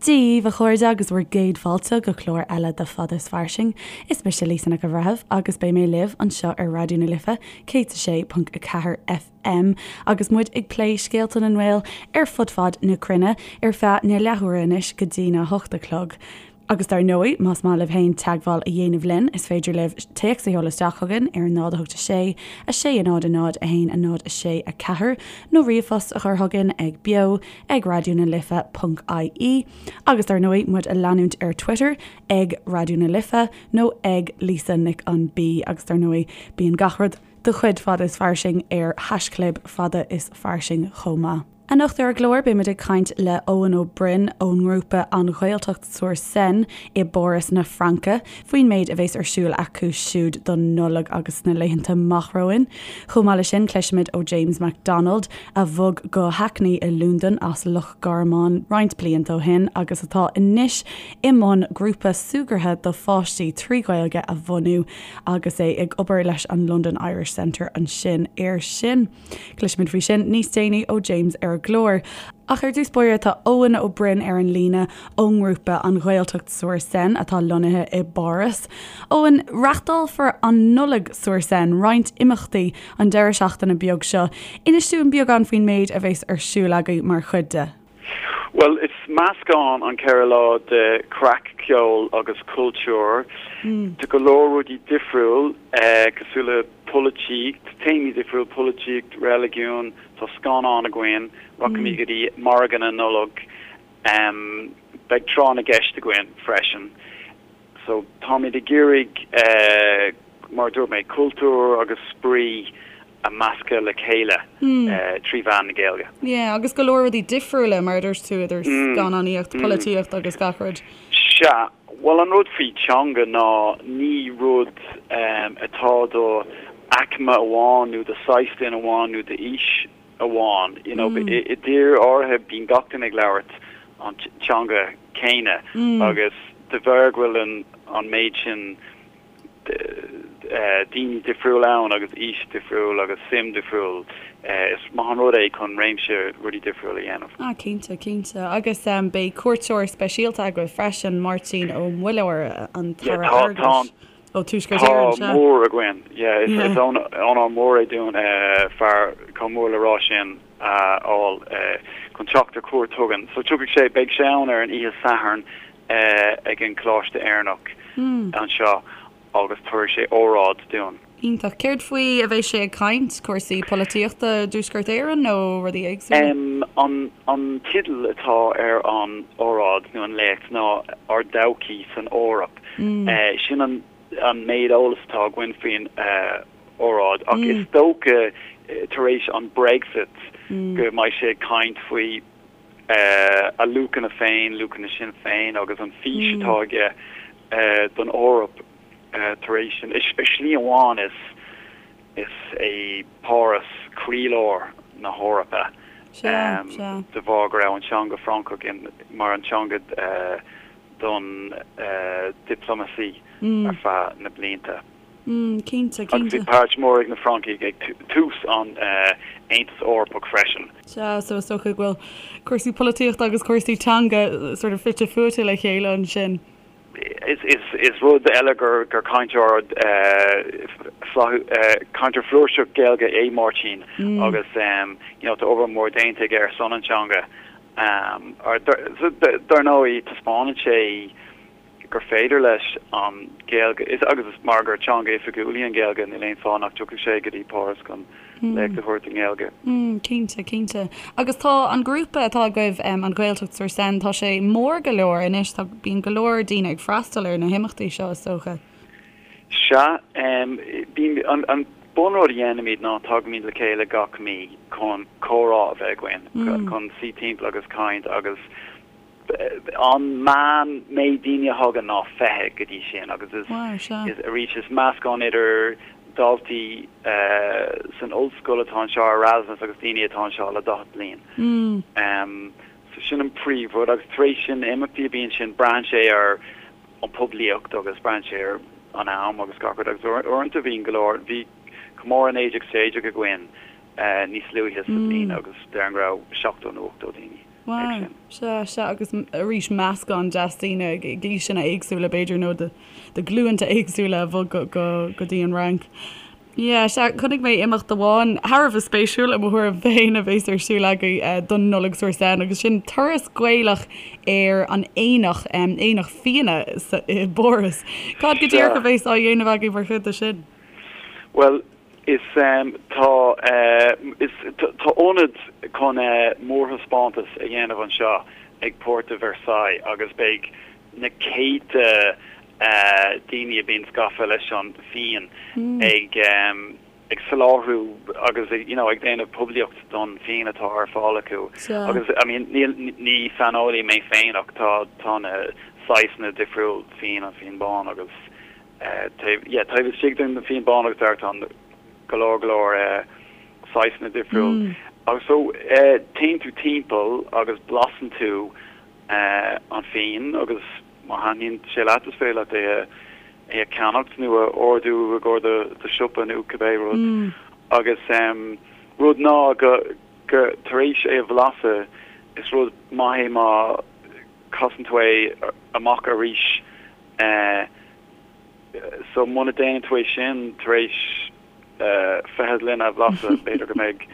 Dia dhaoibh, a chairde, agus bhur gcéad fáilte go clár eile de Fada is Fairsing. Is mise Lisa Nic an Bhreithimh agus beidh mé libh anseo ar Raidió na Life 106.4 FM agus muid ag plé scéalta na nGael ar fud fad na cruinne ar feadh na leathuaire anois go dtí na hocht a chlog. Agus dar ndóigh, más maith libh féin teagmháil a dhéanamh linn, is féidir libh téacs a sheoladh isteach chugainn ar 0 8 6 6 0 0 1 0 6 4 nó ríomhphost a chur chugainn ag beo ag raidió na life ponc ie Agus dar ndóigh, muid a leanúint ar Twitter ag Raidió na Life nó ag Lisa Nic an B Agus dar ndóigh, bíonn gach rud de chuid Fada is Fairsing ar haischlib Fada is Fairsing chomh maith. Anocht ar an gclár beimid ag caint le Eoin Ó Broin ón ngrúpa An Ghaeltacht sur Seine i bPáras na Fraince faoin méid a bhéas ar siúl acu siúd don Nollaig agus sna laethanta amach romhainn. Chomh maith leis sin cloisfimid ó James McDonald a bhog go Hackney i Londain as Loch Garman roinnt blianta ó shin agus atá anois i mbun grúpa súgartha do pháistí 3 Ghaeilge a bhunú agus é ag obair leis an London Irish Centre ansin air sin. Cloisfimid faoi sin níos déanaí ó James ar an gclár. Ach ar dtús báire tá Eoin Ó Broin ar an líne ón ngrúpa An Ghaeltacht sur Seine atá lonnaithe i bPáras. Eoin, reachtálfar an Nollaig sur Seine, roinnt imeachtaí an deireadh seachtaine beag seo. Inis dúinn beagán faoin méid a bheas ar siúl agaibh mar chuid de. Bhuel, is meascán an 4 lá de chraic, ceol agus cultúr. Tá go leor rudaí difriúil, cosúil le polaitíocht, téamaí difriúil, polaitíocht, reiligiún, tá scannán againn, rachaimid go dtí margadh na Nollag, beidh tráth na gceist againn freisin. So, táimid ag iarraidh, mar a dúirt mé, cultúr agus spraoi a meascadh le chéile 3 mheán na Gaeilge. Yeah, agus go leor rudaí difriúla, mar a dúirt tú, idir scannánaíocht, polaitíocht agus gach rud. Sea, bhuel an rud faoi teanga ná ní rud atá do aicme amháin nó do saghas duine amháin nó d'aois amháin. You know, i dtír áirithe bíonn gach duine ag labhairt an teanga céanna agus de bharr go bhfuil an méid sin daoine difriúil ann agus aois difriúil agus suim difriúil, is maith an rud é chun réimse rudaí difriúil a dhéanamh. Ah cinnte, cinnte. Agus beidh cuairteoir speisialta agaibh freisin, Máirtín Ó Muilleoir, an tAire Airgeadais ó Tuaisceart Éireann, sea? Tá mór againn, yeah. Is onóir mór é dúinn fear chomh mór le rá sin a fháil chun teacht ar cuairt chugainn. So tiocfaidh sé, beidh sé ann ar an oíche Sathairn ag an Choláiste Éireannach anseo agus tabharfaidh sé óráid dúinn. Iontach. Céard faoi a bheidh sé ag caint? Cúrsaí polaitíochta i dTuaisceart Éireann nó rudaí éagsúla? An teideal atá ar an óráid nó an léacht ná Ár dTodhchaí san Eoraip. Sin an méid eolais atá againn faoin óráid ach is dócha tar éis an Brexit go mbeidh sé ag caint faoi a luachanna féin, luachanna Sinn Féin agus an fís atá aige don Eoraip tar éis sin. Ar shlí amháin is is é Páras croílár na hEorpa de bharr go raibh an teanga Francach mar an teanga don diplomacy ar feadh na blianta. Cinnte, cinnte. Agus bhí páirt mhór ag na Francaigh ag tús an Aontas Eorpach freisin. Sea, so is dócha go bhfuil cúrsaí polaitíochta agus cúrsaí teanga sort of fite fuaite le chéile ansin. Is rud eile gur cainteoir cainteoir flúirseach Gaeilge é Máirtín agus you know tá obair mhór déanta aige ar son an teanga. Dar ndóigh taispeánann sé gur féidir leis an Ghaeilge, is agus is mar gur teanga oifigiúil í an Ghaeilge, níl aon fáth nach dtiocfadh sé go dtí Páras chun léacht a thabhairt i nGaeilge. Cinnte, cinnte. Agus tá an grúpa atá agaibh, an Ghaeltacht sur Seine, tá sé mór go leor anois, tá, bíonn go leor daoine ag freastal ar na himeachtaí seo, is dócha. Sea, bíonn, an, an bunrud a dhéanaimid ná tagaimid le chéile gach mí chun comhrá a bheith againn, chun suí timpeall agus caint agus An meán méid daoine a thagann ná 20 go dtí sin agus is arís is meascán idir daltaí san ollscoil atá anseo ar Erasmus agus daoine atá anseo le 40 bliain. So sin an príomhrud agus tar éis sin na imeachtaí a bhíonn sin braitheann sé ar an poiblíocht agus braitheann sé ar an am agus gach rud agus uaireanta bhíonn go leor, bhí comóradh 1916 againn níos luaithe sa bhliain agus déarfainn go raibh 70 nó 80 daoine. Wow. sin. Sea, sea, agus arís meascán deas daoine ag aoiseanna éagsúla b'fhéidir nó de de ghlúnta éagsúla a bhog go go go dtí an Fhrainc. Yeah, sea, chonaic mé imeacht amháin thar a bheith spéisiúil i mo thuairim féin a bhéas ar siúl agaibh don Nollaig sur Seine agus sin turas Gaelach ar an aonach, aonach fíona i bPáras. Cad go díreach a bhéas á dhéanamh agaibh mar chuid de sin? Bhuel, is tá is tá ionad chun mórthaispeántas a dhéanamh anseo ag Porte de Versailles agus beidh na céadta daoine a bhíonn gafa leis an fíon ag ag soláthrú agus you know ag déanamh poiblíocht don fíon atá ar fáil acu agus I mean níl ní saineolaí mé féin ach tá tá na saghsanna difriúil fíon an fíon bán agus taobh yeah taobh istigh den fíon bán agus dearg tá go leor go leor saghsanna difriúil agus so téann tú timpeall agus blasann tú an fíon agus má thaitníonn sé leat is féidir leat é é a cheannacht nó a ordú i gcomhair do do siopa nó cibé rud. Agus rud ná go go tar éis é a bhlasadh is rud maith é má casann tú é amach arís so muna déanann tú é sin tar éis 20 gloine a bhlasadh b'fhéidir go mbeidh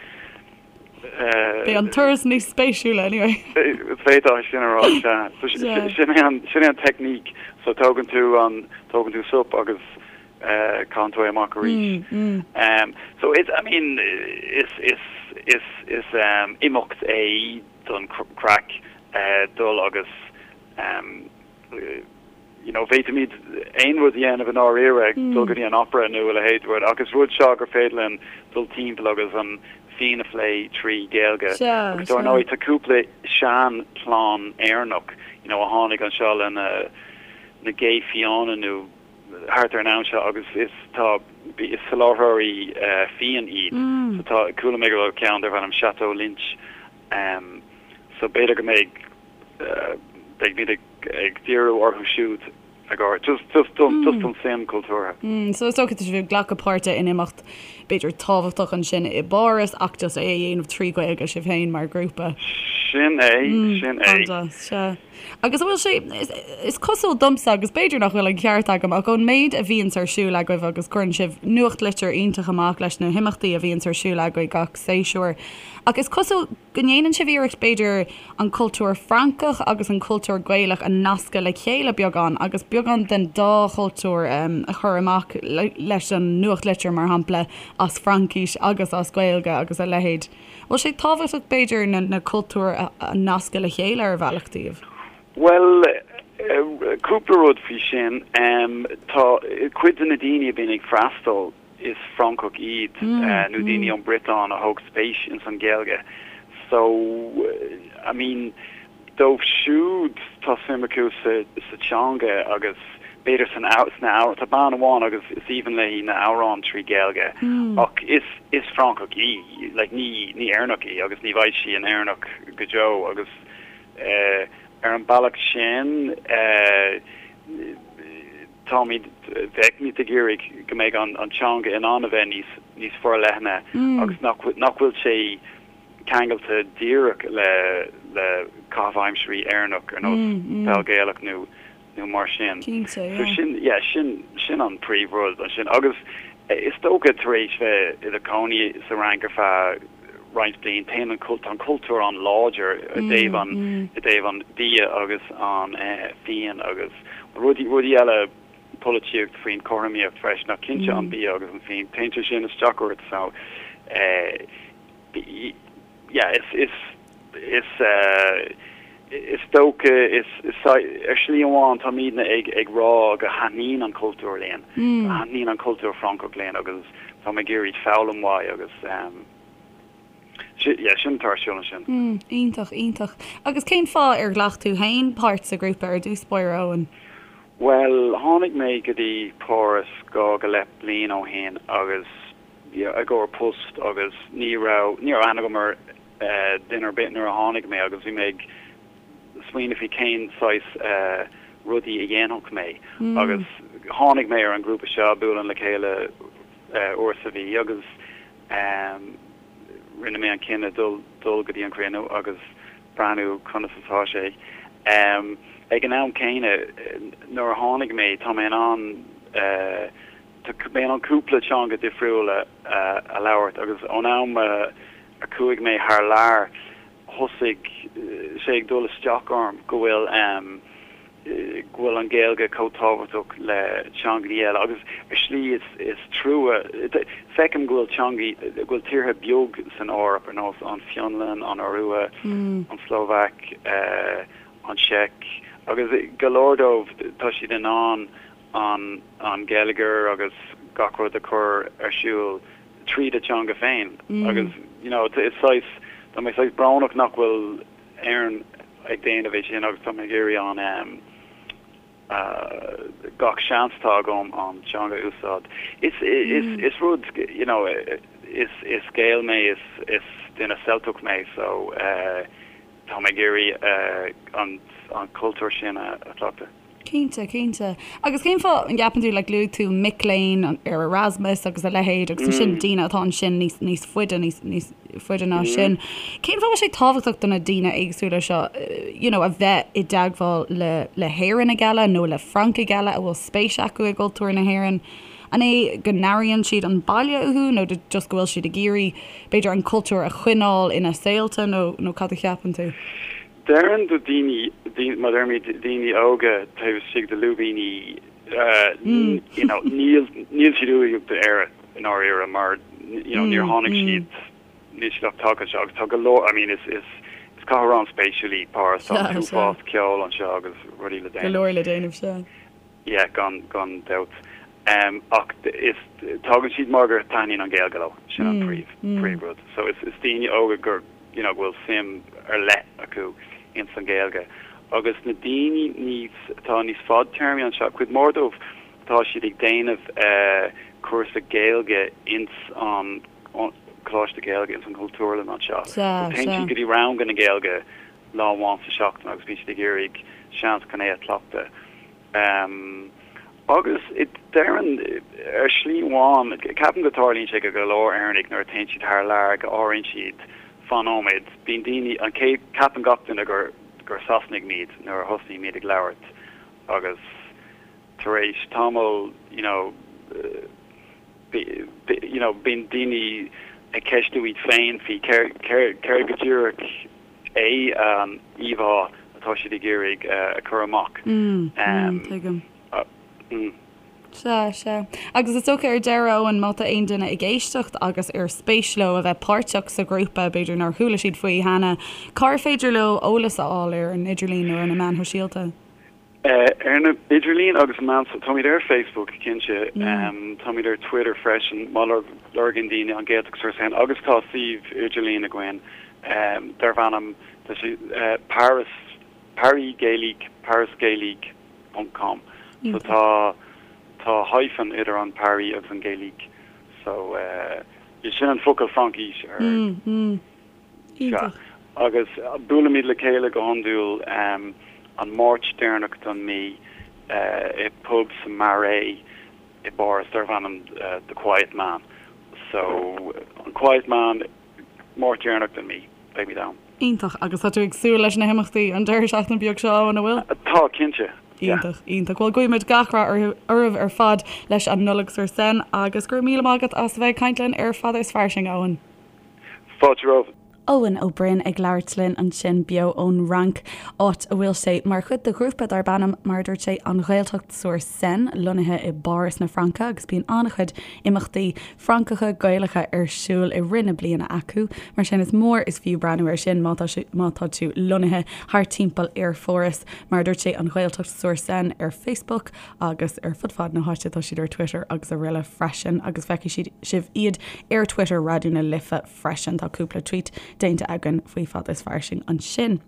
Beidh an turas níos spéisiúla anyway. D'fhéadfá é sin a rá, sea. So sin é an, sin é an teicníc. So tógann tú an, tógann tú sop agus caitheann tú é amach arís. So it's, I mean, is, is, is, is imeacht é don craic dul agus you know, bhféadfaimid aon rud a dhéanamh i ndáiríre, dul go dtí an opera nó a leithéid de rud, ach is rud seo gur féidir linn dul timpeall agus an fíon a phlé trí Ghaeilge. Agus dár ndóigh tá cúpla sean-chlann Éireannach, you know, a tháinig anseo le na na gé fiáine nó thart ar an am seo agus is tá is soláthróirí fíon iad. So tá chuala mé go bhfuil ceann darb ainm Chateau Lynch. So b'fhéidir go mbeidh beimid ag ag díriú orthu siúd ag ár just just don just don suim cultúrtha. So is dócha tá sibh ag glacadh páirte in imeacht b'fhéidir tábhachtach ansin i bPáras ach just é a dhéanamh trí Ghaeilge sibh féin mar ghrúpa. Sin é, sin é. An-deas, sea. Agus an bhfuil sé, is, is cosúil domsa agus b'fhéidir nach bhfuil an ceart agam ach ón méid a bhíonns ar siúl agaibh agus cuireann sibh nuachtlitir iontach amach leis na himeachtaí a bhíonns ar siúl agaibh gach séasúr ach is cosúil go ndéanann sibh iarracht, b'fhéidir, an cultúr Francach agus an cultúr Gaelach a nascadh le chéile beagán agus beagán den dá chultúr a chur amach leis an nuachtlitir, mar shampla, as Fraincis agus as Gaeilge agus a leithéid. Bhfuil sé tábhachtach, b'fhéidir, na cultúir a nascadh le chéile ar bhealach daoibh? Bhuel, cúpla rud faoi sin. Tá cuid de na daoine a bhíonn ag freastal, is Francaigh iad nó daoine ón Briotáin a thóg spéis ins an Ghaeilge so I mean dóibh siúd tá suim acu sa sa teanga agus b'fhéidir san sna amhráin tá bean amháin agus is aoibhinn léi na amhráin trí Ghaeilge ach is is Francach í like ní ní Éireannach í agus ní bheidh sí ina Éireannach go deo agus eh ar an bealach sin eh Táimid, bheimid ag iarraidh go mbeidh an teanga in ann a bheith níos, níos forleithne agus nach, nach bhfuil sé ceangailte díreach le, le caitheamh aimsirí Éireannach ar nós peil Gaelach nó, nó mar sin. Cinnte, So yeah. sin, yeah, sin, sin an príomhrud ansin. Agus is dócha tar éis bheith i do chónaí sa Fhrainc ar feadh roinnt bliain, téann an, tá an cultúr an-láidir i dtaobh an, i dtaobh an bia agus an fíon agus rudaí, rudaí eile, polaitíocht faoin cothromaíocht freisin ach cinnte an bia agus an fíon, téann sé sin isteach ort so yeah, is, is, is, is dócha, is, is, ar shlí amháin táimidne ag, ag rá go thaitníonn an cultúr linn, go thaitníonn an cultúr Francach linn agus táim ag iarraidh foghlaim uaidh agus yeah, sin atá ar siúl ansin. Iontach, iontach. Agus cén fáth ar ghlac tú féin páirt sa ghrúpa ar dtús báire, Eoin? Bhuel, tháinig mé go dtí Páras dhá go leith bliain ó shin agus yeah, i gcomhair post agus ní raibh, ní raibh aithne agam ar duine ar bith nuair a tháinig mé agus bhí mé ag smaoineamh faoi cén saghas rudaí a dhéanfadh mé agus tháinig mé ar an ghrúpa seo, buaileann le chéile uair sa mhí agus rinne mé an cinneadh dul dul go dtí an cruinniú agus. breathnú conas atá sé. Ag an am céanna, nuair a tháinig mé, tá mé in ann tá mé in ann cúpla teanga difriúla a labhairt agus ón am a chuaigh mé thar lear, thosaigh sé ag dul isteach orm go bhfuil go bhfuil an Ghaeilge chomh tábhachtach le teangaí eile agus ar shlí is is trua feicim go bhfuil teangaí go bhfuil tíortha beag san Eoraip ar nós an Fionlainn, an Iorua, an tSlóvaic, an tSeic agus go leor dóibh tá siad in ann an an geilleagar agus gach rud a chur ar siúl tríd a teanga féin agus you know is saghas tá mé saghas brónach nach bhfuil Éirinn ag déanamh é sin agus tá mé ag iarraidh an gach seans atá agam an teanga a úsáid. Is is rud you know is is Gael mé is is duine Ceilteach mé so tá mé ag iarraidh an an cultúr sin a chleachtadh. Cinnte, cinnte. Agus cén fáth an gceapann tú, like luaigh tú mic léinn ar Erasmus agus a leithéid agus ansin daoine atá ansin níos, níos faide, níos, níos faide ná sin. Cén fáth a bhfuil sé tábhachtach do na daoine éagsúla seo, you know, a bheith i dteagmháil le, le hÉireannaigh eile nó le Francaigh eile a bhfuil spéis acu i gcultúr na hÉireann? An é go n-airíonn siad an baile uathu nó just go bhfuil siad ag iarraidh, b'fhéidir, an cultúr a choinneáil ina saolta nó, nó cad a cheapann tú? Déarfainn do daoine, mar deirimid, daoine óga taobh istigh de lúibíní, you know, níl, níl siad uathach d'Éire i ndáiríre mar, you know, níor tháinig siad, níl siad ach tagtha anseo agus tá go leor, I mean, is, is, is cathair an-spéisiúil í Páras, tá an t-uafás ceoil anseo agus rudaí le déanamh. Go leor le déanamh, sea. Yeah, gan, gan dabht. Ach is, tagann siad mar gur taitníonn an Ghaeilge leo, sin an príomh, príomh rud. So is, is daoine óga gur, you know, go bhfuil suim ar leith acu ins an Ghaeilge. Agus na daoine níos, atá níos fadtéarmaí anseo, cuid mhór dóibh, tá siad ag déanamh cúrsa Gaeilge ins an Coláiste Gaeilge, ins an Chultúrlann anseo. So téann siad go dtí ranganna Gaeilge lá amháin sa seachtain agus bíonn siad ag iarraidh seans chun é a chleachtadh. Agus déarfainn, ar shlí amháin, ceapaim go dtarlaíonn sé go go leor Éireannaigh nuair a téann siad thar lear go airíonn siad, fan nóiméad, bíonn daoine, an chéad, ceapann gach duine gur gur Sasanaigh muid nuair a thosnaímid ag labhairt agus tar éis tamall, you know, you know, bíonn daoine ag ceistiú iad féin faoi céard, céard go díreach é an íomhá atá siad ag iarraidh a chur amach. Tuigim. Sea, sea. Agus is dócha ar deireadh, Eoin, má tá aon duine ag éisteacht agus ar spéis leo a bheith páirteach sa ghrúpa, b'fhéidir nár chuala siad faoi cheana, cár féidir leo eolas a fháil ar an idirlíon nó ar na meáin shóisialta? Ar an idirlíon agus meáin, táimid ar Facebook, cinnte. Táimid ar Twitter freisin, má lorgaíonn daoine an Ghaeltacht sur Seine agus tá suíomh idirlín againn darb ainm, tá sé Paris, Paris Gaélique, parisgaélique ponc com. So tá, tá hyphen idir an Paris agus an Gaélique. So sin an focal Fraincise ar. Iontach. Agus buailimid le chéile go hiondúil an Máirt deireanach den mí i bpub sa Marais i bPáras darb ainm The Quiet Man. So, an Quiet Man, Máirt deireanach den mí, beimid ann. Iontach. Agus tá tú ag súil leis na himeachtaí an deireadh seachtaine beag seo, an bhfuil? Tá, cinnte. Yeah. Iontach, iontach. Bhuel, guímid gach rath oraibh ar fad leis an Nollaig sur Seine agus go raibh míle maith agat as a bheith ag caint linn ar Fada is Fairsing, a Eoin. Fáilte romhat. Eoin Ó Broin ag labhairt linn ansin beo ón Fhrainc, áit a bhfuil sé mar chuid de ghrúpa darb ainm, mar a dúirt sé, An Ghaeltacht sur Seine, lonnaithe i bPáras na Fraince agus bíonn an-chuid imeachtaí Francacha, Gaelacha ar siúl i rith na bliana acu. Mar sin is mór is fiú breathnú air sin má tá má tá tú lonnaithe thart timpeall ar Pháras. Mar a dúirt sé, An Ghaeltacht sur Seine ar Facebook. agus ar fud fad na háite, tá siad ar Twitter agus araile freisin agus feicfidh sibh iad ar Twitter Raidió na Life freisin. Tá cúpla tweet déanta againn faoi Fada is Fairsing ansin.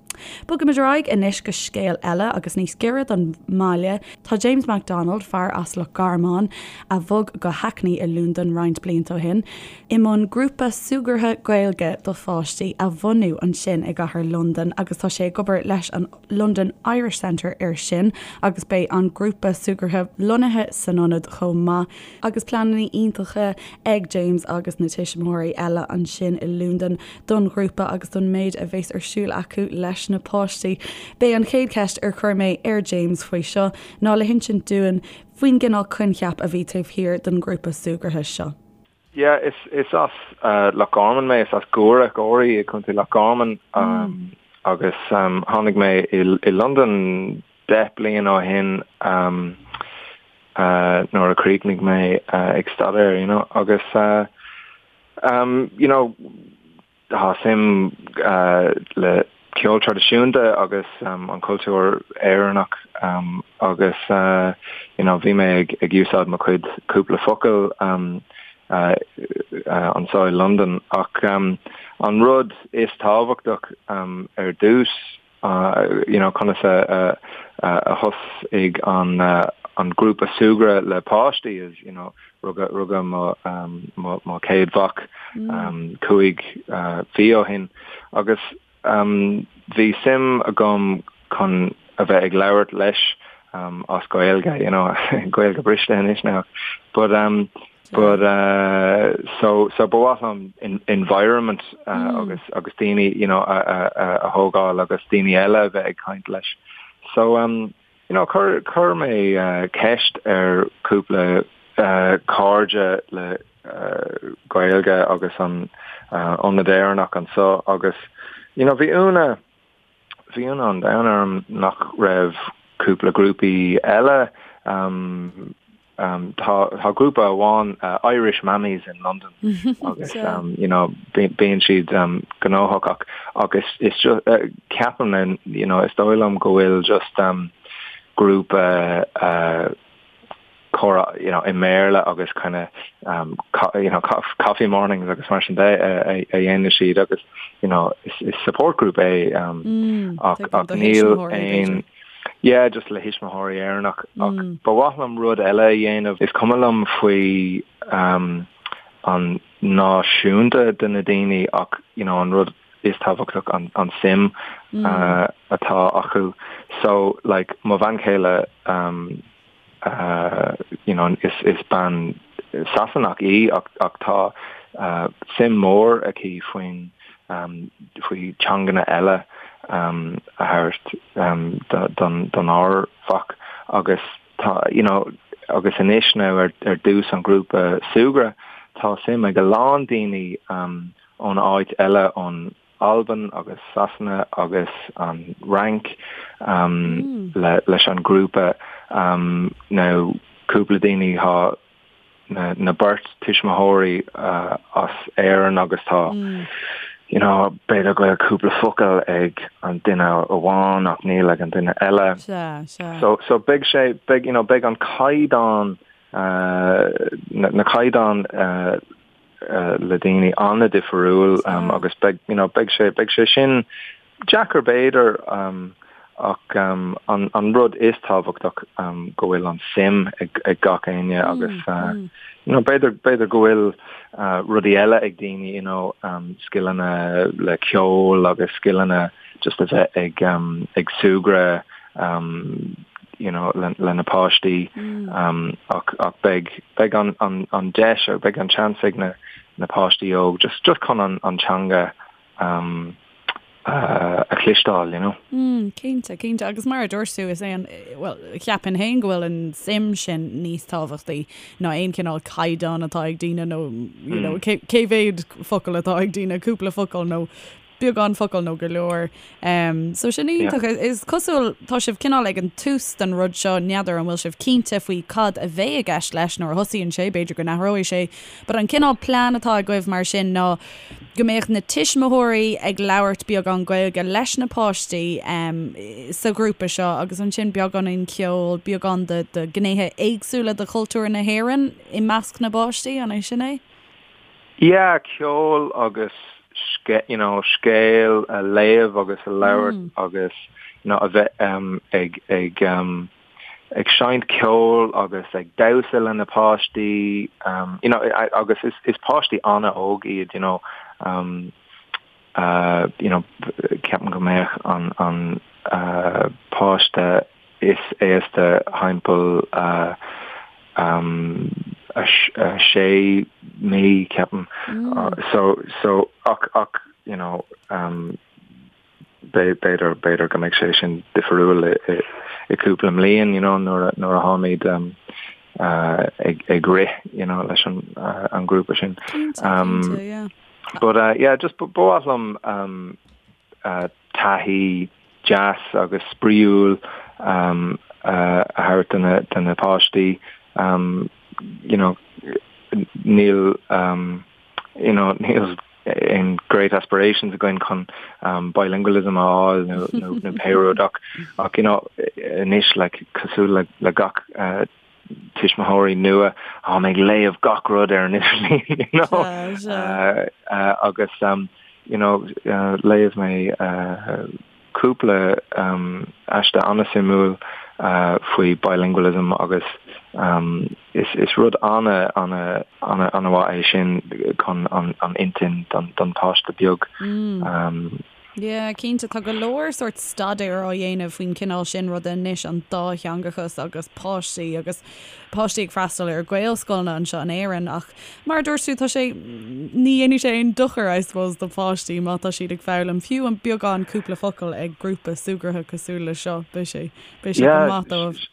Bogaimid ar aghaidh anois go scéal eile agus níos giorra don mbaile. Tá James McDonald, fear as Loch Garman a bhog go Hackney i Londain roinnt blianta ó shin, i mbun grúpa súgartha Gaeilge do pháistí a bhunú ansin i gcathair Londan agus tá sé ag obair leis an London Irish Centre air sin agus beidh an grúpa súgartha lonnaithe san ionad chomh maith. Agus pleananna iontacha ag James agus na tuismitheoirí eile ansin i Londain don ghrúpa agus don méid a bheas ar siúl acu leis na páistí. B'é an chéad cheist ar chuir mé ar James faoi seo ná le hinsint dúinn faoin gcineál coincheap a bhí taobh thiar den ghrúpa súgartha seo. Yeah, is is as Loch Garman mé, is as Guaire, Gorey i gContae Loch Garman agus tháinig mé i i Londain 10 bliain ó shin nuair a chríochnaigh mé ag staidéar, you know, agus you know, Tá suim le ceol traidisiúnta agus an cultúr Éireannach agus you know bhí mé ag úsáid mo chuid cúpla focal anseo i Londain ach an rud is tábhachtach ar dtús you know conas a a thosaigh an an grúpa súgradh le páistí is you know rugadh rugadh mo mo mo chéad mhac 5 mhí ó shin agus bhí suim agam chun a bheith ag labhairt leis as Gaeilge you know Gaeilge briste anois now but But so so ba mhaith liom environment agus agus daoine you know a a a thógáil agus daoine eile a bheith ag caint leis. So um you know chuir chuir mé ceist ar cúpla cairde le Gaeilge agus an Ionad Éireannach anseo agus you know bhí ionadh Bhí ionadh an domhain orm nach raibh cúpla grúpaí eile. Tá tá grúpa amháin Irish Mammies in London agus you know bíonn siad gnóthach ach ach is is ceapaim you know is dóigh liom go bhfuil just grúpa comhrá you know i mBéarla agus kind of um you know coffee mornings agus mar sin de a dhéanann siad agus you know is is support group é um mm, ach ach níl aon yeah just le thuismitheoirí Éireannach ach mm. ba mhaith liom rud eile a dhéanamh is cuma liom faoi um an náisiúnta de na daoine ach you know an rud is tábhachtach an an suim mm. uh, atá acu so like mo bhean chéile um you know is is bean Sasanach í ach ach tá suim mór aici faoin faoi teanganna eile a thabhairt don don ár mhac agus tá you know agus anois now ar ar dtús an grúpa súgradh tá suim ag a lán daoine ón áit eile ón Albain agus Sasana agus an Fhrainc leis an grúpa. Now cúpla daoine tá na beirt tuismitheoirí as Éirinn agus tá you know b'fhéidir go bhfuil cúpla focal ag an duine amháin ach níl ag an duine eile. So so beidh sé beidh you know beidh an caighdeán na caighdeán le daoine an-difriúil agus beidh you know beidh sé beidh sé sin deacair b'fhéidir ach an an rud is tábhachtach go bhfuil an suim ag ag gach éinne agus you know b'fhéidir b'fhéidir go bhfuil rudaí eile ag daoine you know scileanna le ceol agus scileanna just a bheith ag ag súgradh you know le le na páistí ach ach beidh beidh an an an deis or beidh an chance ag na na páistí óg just just chun an an teanga um a chloisteáil you know. Mm, cinnte, cinnte. Agus mar a dúirt tú, is é an, bhuel, cheapfainn féin go bhfuil an suim sin níos tábhachtaí ná aon chineál caighdeán atá ag daoine nó, you know, cé cé mhéad focal atá ag daoine, cúpla focal nó beagán focal nó go leor. So sin iontach. Is cosúil, tá sibh cineál ag an tús den rud seo, n'fheadar an bhfuil sibh cinnte faoi cad a bheidh i gceist leis nuair a thosaíonn sé, b'fhéidir go n-athróidh sé, but an cineál plean atá agaibh mar sin ná go mbeadh na tuismitheoirí ag labhairt beagán Gaeilge leis na páistí sa ghrúpa seo agus ansin beagáinín ceoil, beagán de de ghnéithe éagsúla de chultúr na hÉireann i measc na bpáistí, an é sin é? Yeah, ceol agus. you know, scéal a léamh agus a labhairt agus you know, a bheith um, ag, ag, um, ag seinnt ceoil agus ag damhsa le na páistí um, you know, agus is, is páistí an-óg iad, you know, um, uh, you know, ceapaim go mbeadh an, an uh, páiste is aosta thimpeall uh, um, a, a sé mí ceapaim. Mm. Uh, so, so ach, ach, you know, um, b'fhéidir, b'fhéidir go mbeidh sé sin difriúil i, i cúpla mbliain, you know, nuair a, nuair a tháimid um, uh, ag, ag rith, you know, leis an, uh, an grúpa sin. Cinnte, um, cinnte, yeah. But uh, yeah, just ba mhaith liom um, uh, taithí deas agus spraíúil um, uh, a thabhairt do na, do na páistí. Um, you know, níl um, you know, níl aon great aspirations againn chun um, bilingualism a fháil nó, nó, nó pé rud ach, ach you know, anois like, cosúil le, le gach uh, tuismitheoirí nua táim ag léamh gach rud ar an idirlíon you know uh, uh, agus um, you know, uh, léigh mé uh, cúpla um, aiste an-suimiúil uh, faoi bilingualism agus um, is, is rud ana ana ana ana-mhaith é sin chun an, an intinn don, don páiste beag. Mm. Um, Yeah, cinnte, tá go leor sórt staidéar á dhéanamh faoin chineál sin ruda anois, an dátheangachas agus páistí agus páistí ag freastal ar Ghaelscoileanna anseo in Éirinn ach mar a dúirt tú, tá sé, ní dhéanfaidh sé aon dochar, I suppose, do pháistí má tá siad ag foghlaim fiú an beagán cúpla focal ag grúpa súgartha cosúil le seo, beidh sé, beidh sé go maith dóibh.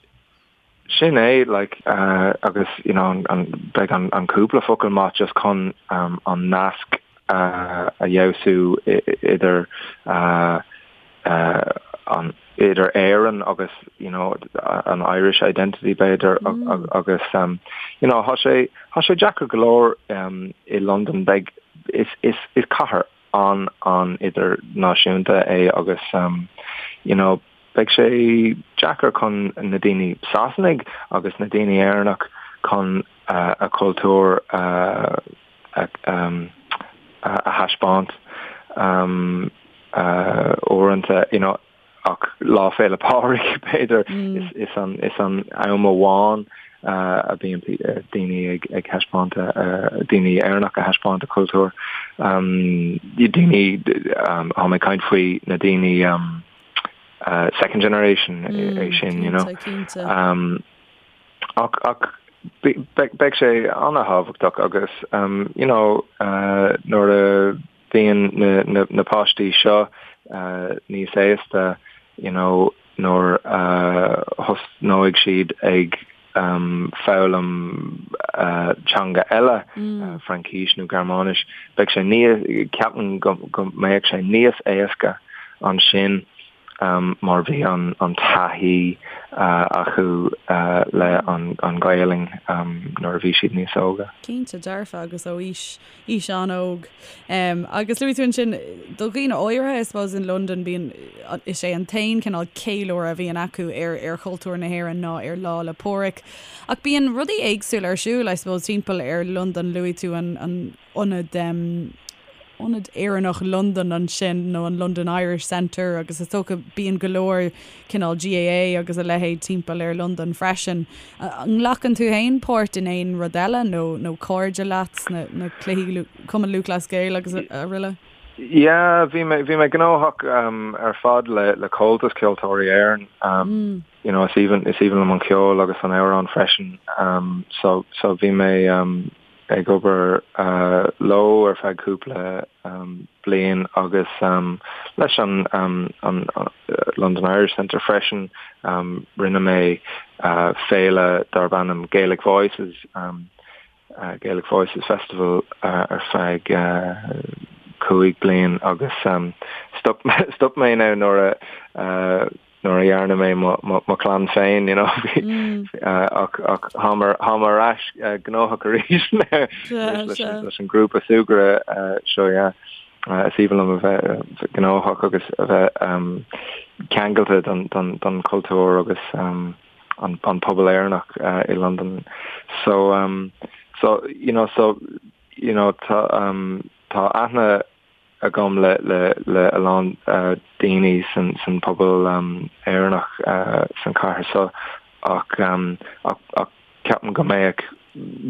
Sin é, like, agus, you know, an, beidh an, an cúpla focal maith just chun um, an nasc uh, a fheabhsú idir uh, uh, an, idir Éirinn agus, you know, an Irish identity b'fhéidir mm. agus, um, you know, tá sé, tá sé deacair go leor um, i Londain beidh, is, is, is cathair an an idirnáisiúnta é agus um, you know, beidh sé deacair chun na daoine Sasanaigh agus na daoine Éireannach chun a cultúr a a thaispeáint um, uh, uaireanta you know, ach Lá Féile Pádraig b'fhéidir is, is an, is an am amháin uh, a bhíonn daoine ag, ag thaispeáint uh, daoine Éireannach ag thaispeáint a cultúr. Um, daoine um, tá mé ag caint faoi na daoine um, uh, second generation mm, é sin, you know. Um, ach, ach beidh sé an-thábhachtach agus um, you know, uh, nuair a bhíonn na, na, na páistí seo uh, níos aosta, you know, nuair a uh, thosnóidh siad ag um, foghlaim uh, teanga eile, mm. uh, Fraincis nó Gearmáinis, beidh sé ní ceapaim go, go mbeidh sé níos éasca ansin um, mar bhí an, an taithí uh, acu uh, le an, an Ghaelainn um, nuair a bhí siad níos óga. Cinnte dearfa agus ó aois aois an-óg. Agus luaigh tú ansin, do dhaoine áirithe, I suppose, in Londain, bíonn, is é an t-aon cineál ceiliúradh a bhíonn acu ar ar chultúr na hÉireann ná ar Lá 'le Pádraig. Ach bíonn rudaí éagsúla ar siúl, I suppose, timpeall ar Londain. Luaigh tú an an ionad, Ionad Éireannach Londan ansin, nó an London Irish Centre, agus is dócha bíonn go leor cineál GAA agus a leithéid timpeall ar Londain freisin. An nglacann tú féin páirt in aon rud eile nó nó cairde leat sna na cluichí Cumann Lúthchleas Gael agus araile? Yeah, bhí mé bhí mé gnóthach um, ar fad le le Comhaltas Ceoltóirí Éireann. Um, mm. You know, is aoibhinn is aoibhinn liom an ceol agus an amhrán freisin. Um, so so bhí mé um, ag obair leo ar feadh cúpla bliain agus leis an London Irish Centre freisin. Rinne mé féile darb ainm Gaelic Voices, Gaelic Voices Festival ar feadh 5 bliain agus stop stop mé now nuair a nuair a dhearna mé mo chlann féin, you know, ach ach táim táim ar ais gnóthach arís leis an grúpa súgartha seo, yeah. Is aoibhinn liom a bheith gnóthach agus a bheith ceangailte don don chultúr agus an an pobal Éireannach i Londain. So um so you know so you know tá um tá aithne. agam le le le a lán daoine san san pobal Éireannach san chathair seo ach ach ach ceapaim go mbeadh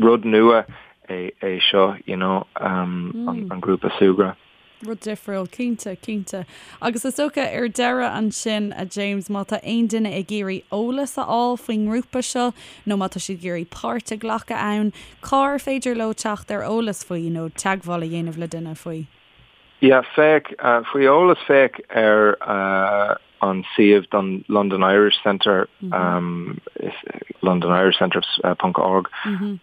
rud nua é é seo you know an an grúpa súgartha. Rud difriúil, cinnte, cinnte. Agus is dócha, ar deireadh ansin, a James, má tá aon duine ag iarraidh eolas a fháil faoin ngrúpa seo nó má tá siad ag iarraidh páirt a ghlacadh ann, cár féidir leo teacht ar eolas faoi nó teagmháil a dhéanamh le duine faoi? Yeah, féach, faoi eolas féach ar an suíomh don London Irish Centre, londonirishcentre ponc org,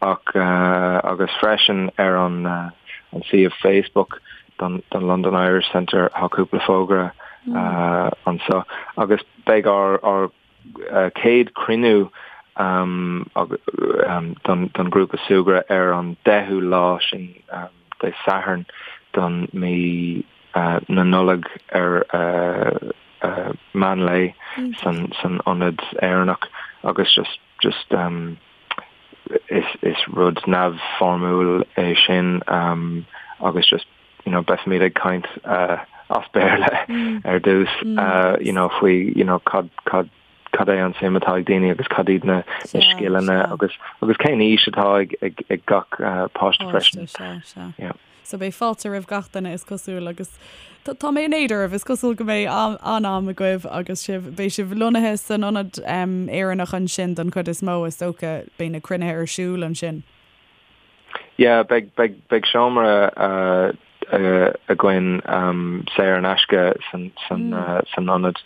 ach agus freisin ar an an suíomh Facebook don don London Irish Centre tá cúpla fógra anseo agus beidh ár ár chéad cruinniú don don ghrúpa súgartha ar an 10ú lá sin Dé Sathairn don mí na Nollag ar meán lae san san ionad Éireannach agus just just is is rud neamhfhoirmiúil é sin agus just you know beifimid ag caint as Béarla ar dtús you know faoi you know cad cad cad é an suim atá ag daoine agus cad iad na scileanna agus agus cén aois atá ag ag ag gach páiste freisin. Sea, sea. Yeah. So beidh fáilte roimh gach duine is cosúil agus tá mé in éad oraibh, is cosúil go mbeidh an-am agaibh agus sibh, beidh sibh lonnaithe san ionad Éireannach ansin don chuid is mó is dócha, beidh na cruinnithe ar siúl ansin. Yeah, beidh, beidh, beidh seomra againn saor in aisce san, san, san ionad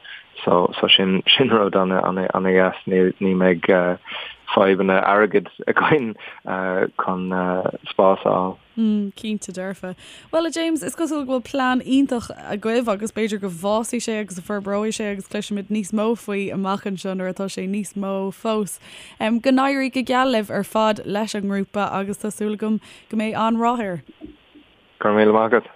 so, so sin, sin rud ana, ana, ana dheas, ní, ní mbeidh fadhbanna airgid againn chun spás a fháil. Mm, cinnte dearfa. Bhuel, a James, is cosúil go bhfuil plean iontach agaibh agus b'fhéidir go bhfásfaidh sé agus go forbróidh sé agus cloisfimid níos mó faoi amach anseo nuair atá sé níos mó fós. Go n-éirí go geal libh ar fad leis an ngrúpa agus tá súil agam go mbeidh an-rath air. Go raibh míle maith agat.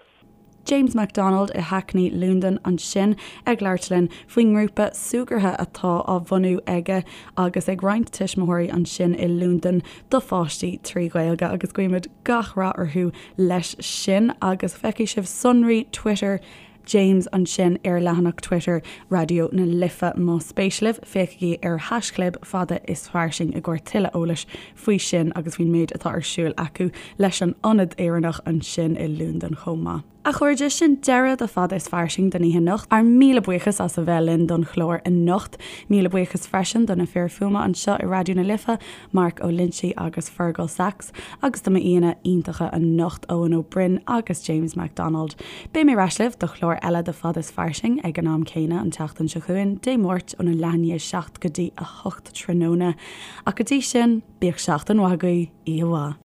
James McDonald i Hackney, Londain ansin ag labhairt linn faoin ngrúpa súgartha atá á bhunú aige agus ag roinnt tuismitheoirí ansin i Londain do pháistí trí Ghaeilge agus guímid gach rath orthu leis sin agus feicfidh sibh sonraí Twitter James ansin ar leathanach Twitter Raidió na Life. Más spéis libh, féachaigí ar haischlib fada is fairsing i gcomhair tuilleadh eolais faoi sin agus faoin méid atá ar siúl acu leis an Ionad Éireannach ansin i Londain chomh maith. A chairde, sin deireadh do Fada is Fairsing don oíche anocht. Ár míle buíochas as a bheith linn don chlár anocht. Míle buíochas freisin do na fir fuaime anseo i Raidió na Life, Mark Ó Loinsigh agus Fergal Sachs. Agus do m'aíonna iontacha anocht, Eoin Ó Broin agus James McDonald. Beidh mé ar ais libh do chlár eile de Fada is Fairsing ag an am céanna an tseachtain seo chugainn, Dé Máirt óna leath i ndiaidh 7 go dtí 8 tráthnóna. Ach go dtí sin, bíodh seachtain mhaith agaibh, oíche mhaith.